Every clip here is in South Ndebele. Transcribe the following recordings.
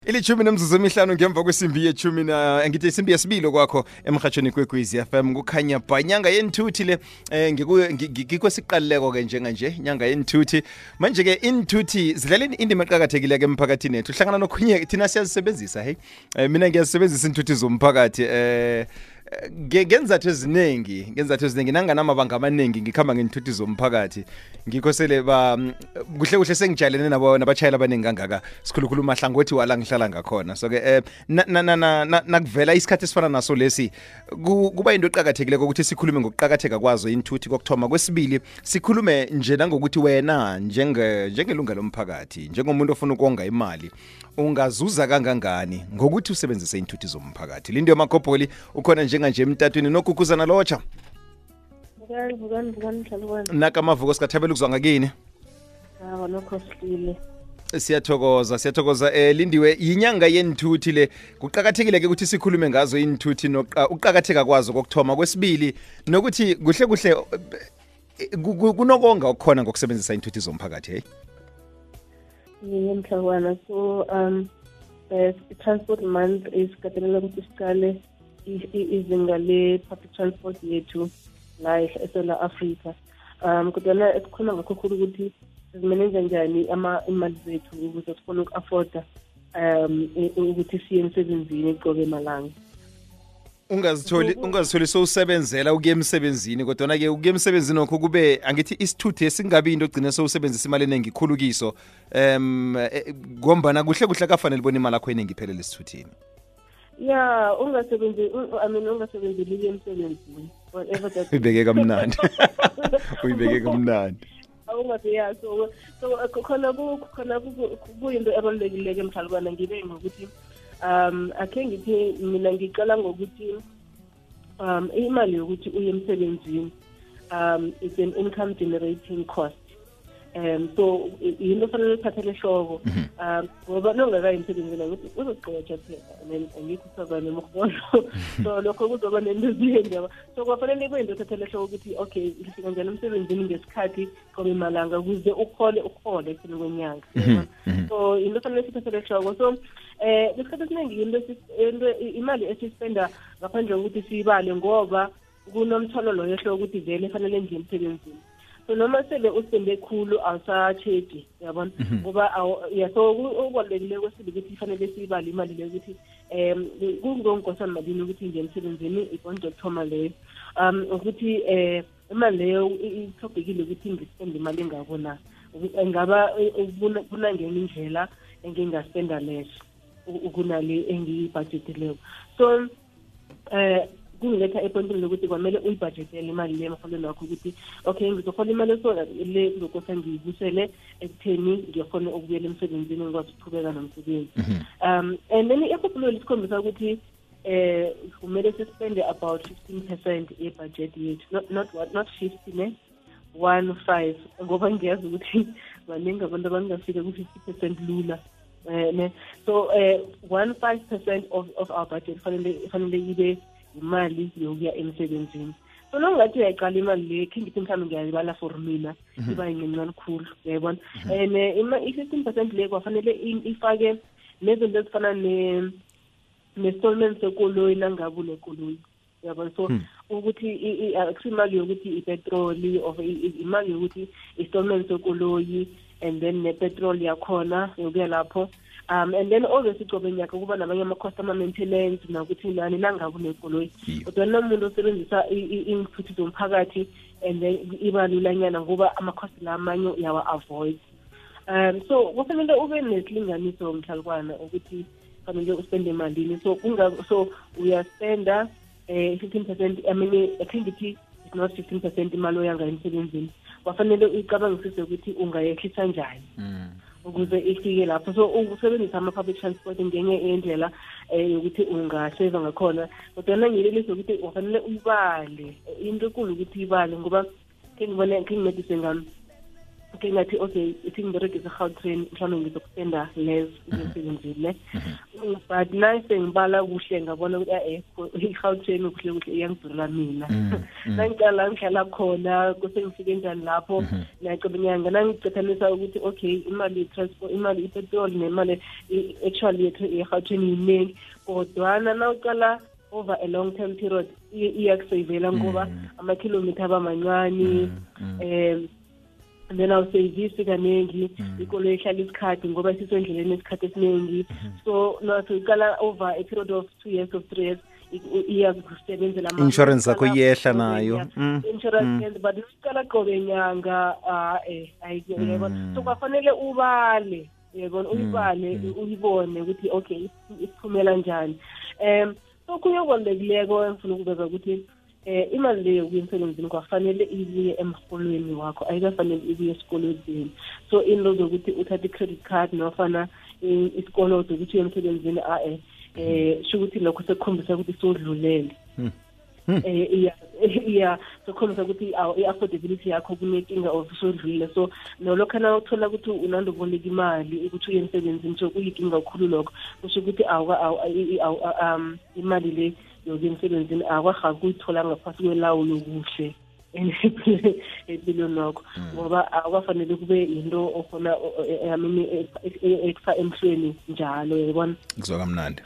Ilithumi nemzuzu emihlanu ngemva kwesimbi yethumi ngithi isimbi yesibili kwakho emhathweni kweKwizi FM kukhanya ba nyanga yenthuthi le ngikwesiqaleko ke njenganje nyanga yenthuthi manje ke inthuthi zidlala indima eqhakathekile ke emphakathini ethu hlangana nokhunye thina siyazisebenzisa hey mina ngiyazisebenzisa inthuthi zomphakathi ngenzathu eziningi nanganamabanga amaningi ngikhamba ngenthuthi zomphakathi ngikhosele kuhle sengijalene nabachayela abaningi kangaka sikhulukhulu mahlangothi wala ngihlala ngakhona so ke nakuvela isikhathi esifana naso lesi kuba into eqhakathekile ukuthi sikhulume ngokuqhakatheka kwazo inthuthi kokthoma kwesibili sikhulume nje nangokuthi wena njengelunga lomphakathi njengomuntu ofuna ukonga imali ungazuza kangangani ngokuthi usebenzise inthuthi zomphakathi lindo yamakopoli ukhona njenganje emtatweni nokukuzana lotsha nakamavuko sikathabela ukuzwa ngakini siyathokoza lindiwe yinyanga yenthuthi le kuqhakathekile ke ukuthi sikhulume ngazo inthuthi nokuqhakatheka kwazo kokthoma kwesibili nokuthi kuhle kunokonga okukhona ngokusebenzisa inthuthi zomphakathi hey Mhlabana. So transport month is katelela ukuthi siqale izinga le public transport yethu la eSouth Africa. Kodwa esikhona ngakho khulu ukuthi sizimanage njani imali zethu ukuze sikhone uku-afforda ukuthi siye emsebenzini qobe malanga. Ungazitholi sowusebenzela ukuya emsebenzini kodwa ke ukuya emsebenzini okho kube angithi isithuthi esingabi into ogcina sowusebenzisa imali eningi ikhulukiso ngombana kuhle kafanele bona imali yakho eningi iphelele esithuthini. Yeah, ungasebenzeli emsebenzini whatever that uyibeke kamnandi awungathi yeah so khona kuyinto ebalulekile emhlabana ngibe ngokuthi akhe ngithi mina ngiqala ngokuthi imali yokuthi uye emsebenzini it's an income generating cost so yinto fanele uphathele hloko ngoba nongakayi emsebenzini ukuthi uzogqoja phela angikho usabane mkhona so lokho kuzoba nento ezinjalo so kwafanele kube into ethathele hloko ukuthi okay ngifika njani emsebenzini ngesikhathi qobe malanga ukuze ukhole ekupheleni kwenyanga so into fanele sithathele hloko so isikhathi esiningi into imali esispenda ngaphandle kokuthi siyibale ngoba kunomthwalo lo yehlo ukuthi vele fanele nje emsebenzini so noma sele uspende khulu awusacheji yabona ngoba so ukubalekile kwesibili ukuthi fanele siyibale imali le ukuthi kungongosana malini ukuthi nje emsebenzini ibonje kuthoma leyo ukuthi imali leyo ithobekile ukuthi ngispende imali engabona ngaba kunangena indlela engingaspenda less ukunale engiyibudgetileko so kungiletha epointini lokuthi kwamele uyibudgetele imali le emholweni wakho ukuthi okay ngizohola imali so le ngizokosa ngiyibusele ekutheni ngiyakhona ukubuyela emsebenzini ngikwazi ukuqhubeka nomsebenzi and then iphuphulo isikhombisa ukuthi kumele sispende about 15% ye-budget yethu not 50 ne 15 ngoba ngiyazi ukuthi baningi abantu abangafika ku-50% lula so 15% of our budget fanele ibe imali yokuya emsebenzini so nongathi uyayiqala imali le ngithi mhlawumbe ngiyayibala for mina iba yincane khulu uyayibona and i-15% le kwafanele ifake nezinto ezifana ne-installment sekoloyi nangabe unekoloyi uyabona so ukuthi akusimali yokuthi ipetroli of imali yokuthi installment sekoloyi and then nepetrol yakhona yokuya lapho and then always icobe nyaka kuba nabanye ama-cost ama-maintenance nakuthi nani nangabe unekoloyi kodwa nomuntu osebenzisa inthuthi zomphakathi and then iba lulanyana ngoba ama-cost la amanye uyawa-avoid so kufanele ube nesilinganiso mhlalukwana ukuthi fanele uspende malini so uyaspenda 15% I mean I think it's not 15% imali oyanga emsebenzini wafanele uyicabangisise ukuthi ungayehlisa njani ukuze ifike lapho so usebenzisa ama-public transport ngenye indlela yokuthi ungaseva ngakhona kodwa nangiyelelisa ukuthi wafanele uyibale into enkulu ukuthi uyibale ngoba ngingimedise ngami okay ngathi okay ithi ngiberegisa Gautrain mhlawumbe ngizokupenda less ngisebenzile but nice ngibala kuhle ngabona ukuthi iGautrain kuhle iyangidurela mina nangicala ngihlala khona kusengifike njani lapho nayaqebenyanga nangicethanisa ukuthi okay imali transport imali ipetrol nemali actually iGautrain iningi kodwa nawucala over a long term period iyakusavela ngoba ama-kilometer abamancane and then awusevisi kaningi ikolo ihlala isikhathi ngoba sisendleleni isikhathi esiningi so nawucala over a period of 2 years or 3 years iyakusebenzela insurance yakho iyehla nayo insurance but ucala qobe nyanga ayiyona so kwafanele ubale yabona uyibale uyibone ukuthi okay isiphumela njani so kuyobalekileko engifuna ukubeka ukuthi imali leyo yokusemsebenzini kwafanele ibuye emholweni wakho ayikafanele ibuye esikolodeni so into zokuthi uthathe i-credit card nofana isikolodo ukuthi emsebenzini sho ukuthi lokho sekukhombisa ukuthi sodlulele sokhombisa ukuthi i-affordability yakho kunenkinga of sodlulile so nolokhana uthola ukuthi unandoboleka imali ukuthi uye emsebenzini so kuyinkinga kakhulu lokho kusho ukuthi imali le yokuya emsebenzini akwaha kuyithola ngaphasi kwelawulo kuhle empilweni nakho ngoba akwafanele kube into okhona ekufaka emhlweni njalo yabona kuzoka mnandi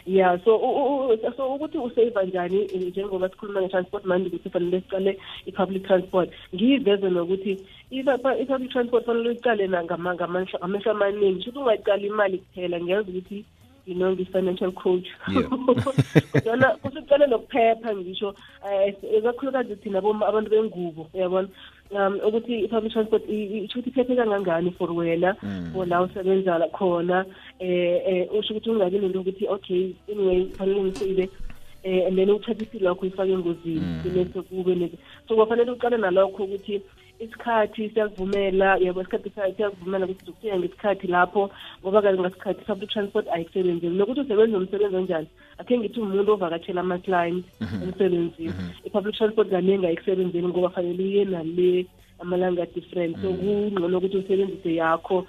yeah so ukuthi usave njani njengoba sikhuluma nge-transport manje ukuthi fanele siqale i-public transport ngiyiveze nokuthi i-public transport fanele uyiqale ngamehlo amaningi shuthi ungayiqali imali kuphela ngiyazi ukuthi ngi-financial coach kodwana kusuqale nokuphepha ngisho ekakhulukazi thina abantu bengubo uyabona ukuthi i-public transport isho ukuthi iphephe kangangani for wena for la usebenza khona usho ukuthi ungabi nento ukuthi okay anyway fanele ngisebe and then uthathe isilo lakho uyifake engozini bese kube so kwafanele uqale nalokho ukuthi isikhathi siyakuvumela yabo isikhathi siyakuvumela ukuthi uzofika ngesikhathi lapho ngoba kanje ngasikhathi public transport ayisebenzeli nokuthi usebenza umsebenzi onjani akhe ngithi umuntu ovakatshela ama-clients emsebenzini i-public transport kaningi ayisebenzeli ngoba fanele uye nale amalanga different so kungcono ukuthi usebenzise yakho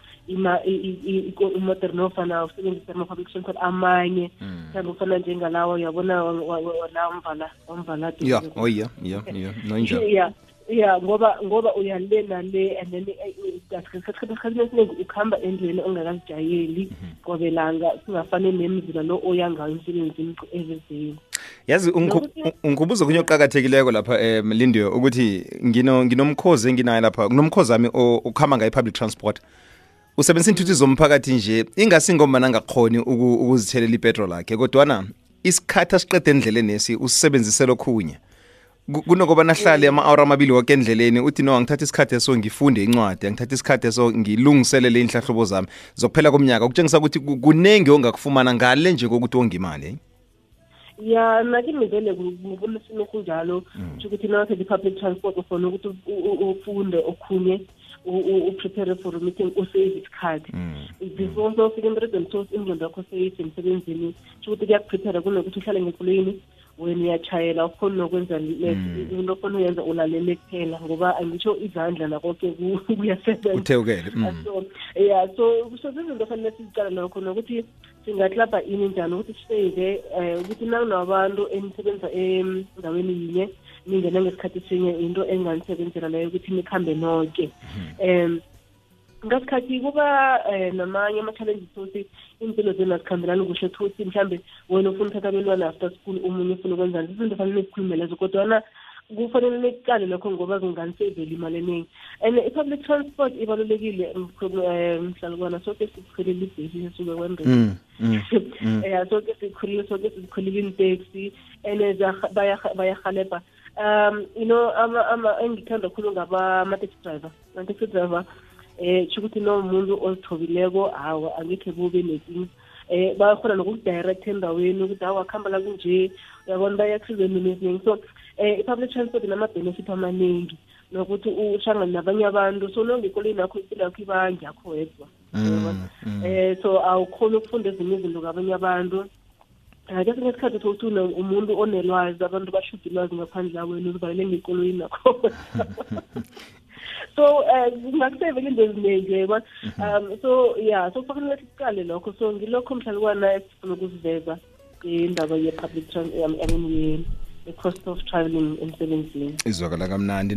imotor nofana usebenzise ama-public transport amanye mhlawumbe ufana njengalawo uyabona la wamvala yeah ngoba uyale nale and then isikhathi esiningi ukuhamba endleleni ongakazijayeli qobelanga singafane nemizila lo oyangayo emsebenzini evezeni yazi ungibuza kunye oqhakathekileko lapha Lindiwe ukuthi nginomkhozi enginayo lapha kunomkhozi wami ukuhamba ngayi public transport usebenzisa inthuthi zomphakathi nje ingasingoma nangakhoni ukuzithelela ipetrol yakhe kodwa isikhathi asiqede endleleni nesi usebenzisela okhunye kunokuba nahlale ama-hour amabili wonke endleleni uthi no angithatha isikhathi eso ngifunde incwadi angithatha isikhathi eso ngilungiselele inhlahlobo zami zokuphela komnyaka ukutshengisa ukuthi kunengi ongakufumana ngale nje kokuthi wonge imali ya nakimi vele ngibona isimo sinjalo ukuthi nawuthe i-public transport ufuna ukuthi ufunde okhunye uprepare for a meeting usave isikhathi before ufike emberegweni so ingqondo yakho seyisemsebenzini ukuthi kuyakuprepare kunokuthi uhlale ngekulweni wena uyachayela ukhona nokwenza into ofuna uyenza ulalele kuphela ngoba angitsho izandla nakonke kuyasebenza uthewukele so izinto fanele sizicala lokho nokuthi singaklabha ini njani ukuthi sisave ukuthi nakunabantu enisebenza endaweni yinye ningena ngesikhathi sinye into enganisebenzela leyo ukuthi nikhambe nonke ngasikhathi kuba namanye ama-challenges sokuthi impilo zenu azikhambelani kuhle thuthi mhlawumbe wena ufuna uthatha abelwana after school omunye ufuna ukwenzani izinto fanele nizikhulume lezo kodwana kufanele niqale lokho ngoba kunganiseveli imali eningi and i-public transport ibalulekile mhlalukwana soke sikhulile ibhesi esuke kwembeni soke sikhulile iteksi and bayahalebha engithanda khulu ngaba-taxi driver ama-taxi driver ukuthi nomuntu ozithobileko hawa angekhe kube nekinga bayakhona nokukudirect endaweni ukuthi hawa akuhamba la kunje uyabona bayakusiza nezinye so i-public transport inama-benefit amaningi nokuthi uhlangane nabanye abantu so nongekoleni yakho impilo yakho iba ngiyakho wedwa so awukhona ukufunda ezinye izinto ngabanye abantu kesinye isikhathi ukuthi umuntu onelwazi abantu bashuda ilwazi ngaphandle kwenu uzivalele ngekolweni nakho So kungakusevela into eziningi yebo. So yeah, so kufanele siqale lokho. So ngilokho mhlalukwana esifuna ukuziveza indaba ye-public the cost of traveling emsebenzini. Izwakala kamnandi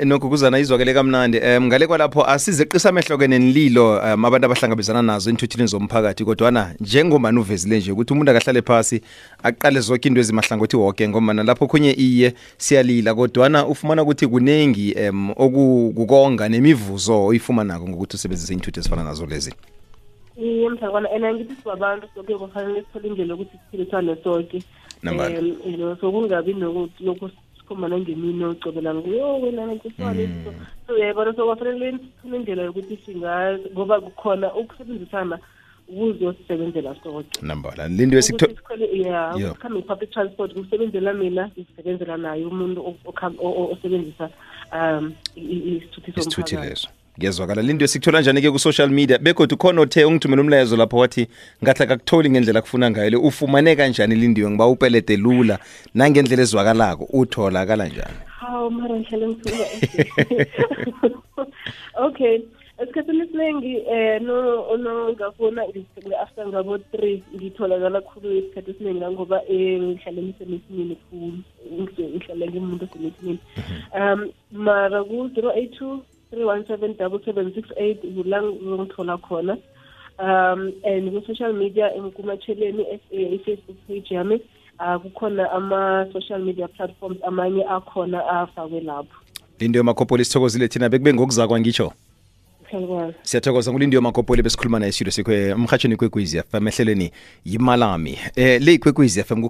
nokukuzana izwakele kamnandi ngale kwalapho asizeqisa amehlo nenililo abantu abahlangabezana nazo enthuthini zomphakathi kodwana njengomani uvezile nje ukuthi umuntu akahlale phasi aqale zonke into ezimahlangothi wonke ngoba lapho khonye iye siyalila kodwana ufumana ukuthi kunengi okukonga nemivuzo oyifumanako ngokuthi usebenzise inthuthi ezifana nazo lezi. Mhlakwana ngithi sibabantu soke kufanele sithole indlela yokuthi siphilisane sonke. So kungabi lokhu sikhomana ngemini ocobela nguyo wena ngisifane so yebo so kwafanele sithole indlela yokuthi ngoba kukhona ukusebenzisana ukuzosebenzela sonke. Nambala lindo come public transport kusebenzela mina sisebenzela naye umuntu osebenzisa isithuthi leso. Ngezwakala lindo sikuthola njani ke ku social media bekodwa khona othe ungithumela umlayezo lapho wathi ngathi akakutholi ngendlela kufuna ngayo ufumane kanjani lindiwe ngiba upelete lula nangendlela ezwakalako utholakala njani? Mara ngihlale ngithuka. Okay, esikhathini esiningi ngafuna after ngabo 3 ngitholakala khulu isikhathi esiningi ngoba ngihlale ngisemithini khulu ngihlale ngimuntu osemithini. Mara ku 082 3177768 ngithola khona and ku social media kumatsheleni Facebook page yami kukhona ama social media platforms amanye akhona afakwe lapho. Lindo Makopoli sithokozile thina bekube ngokuzakwa ngitsho. Siyathokoza nguLindiwe Makopoli besikhuluma naye studio sikwe emhathweni kweKwekwezi FM ehlelweni yimalami le kweKwekwezi FM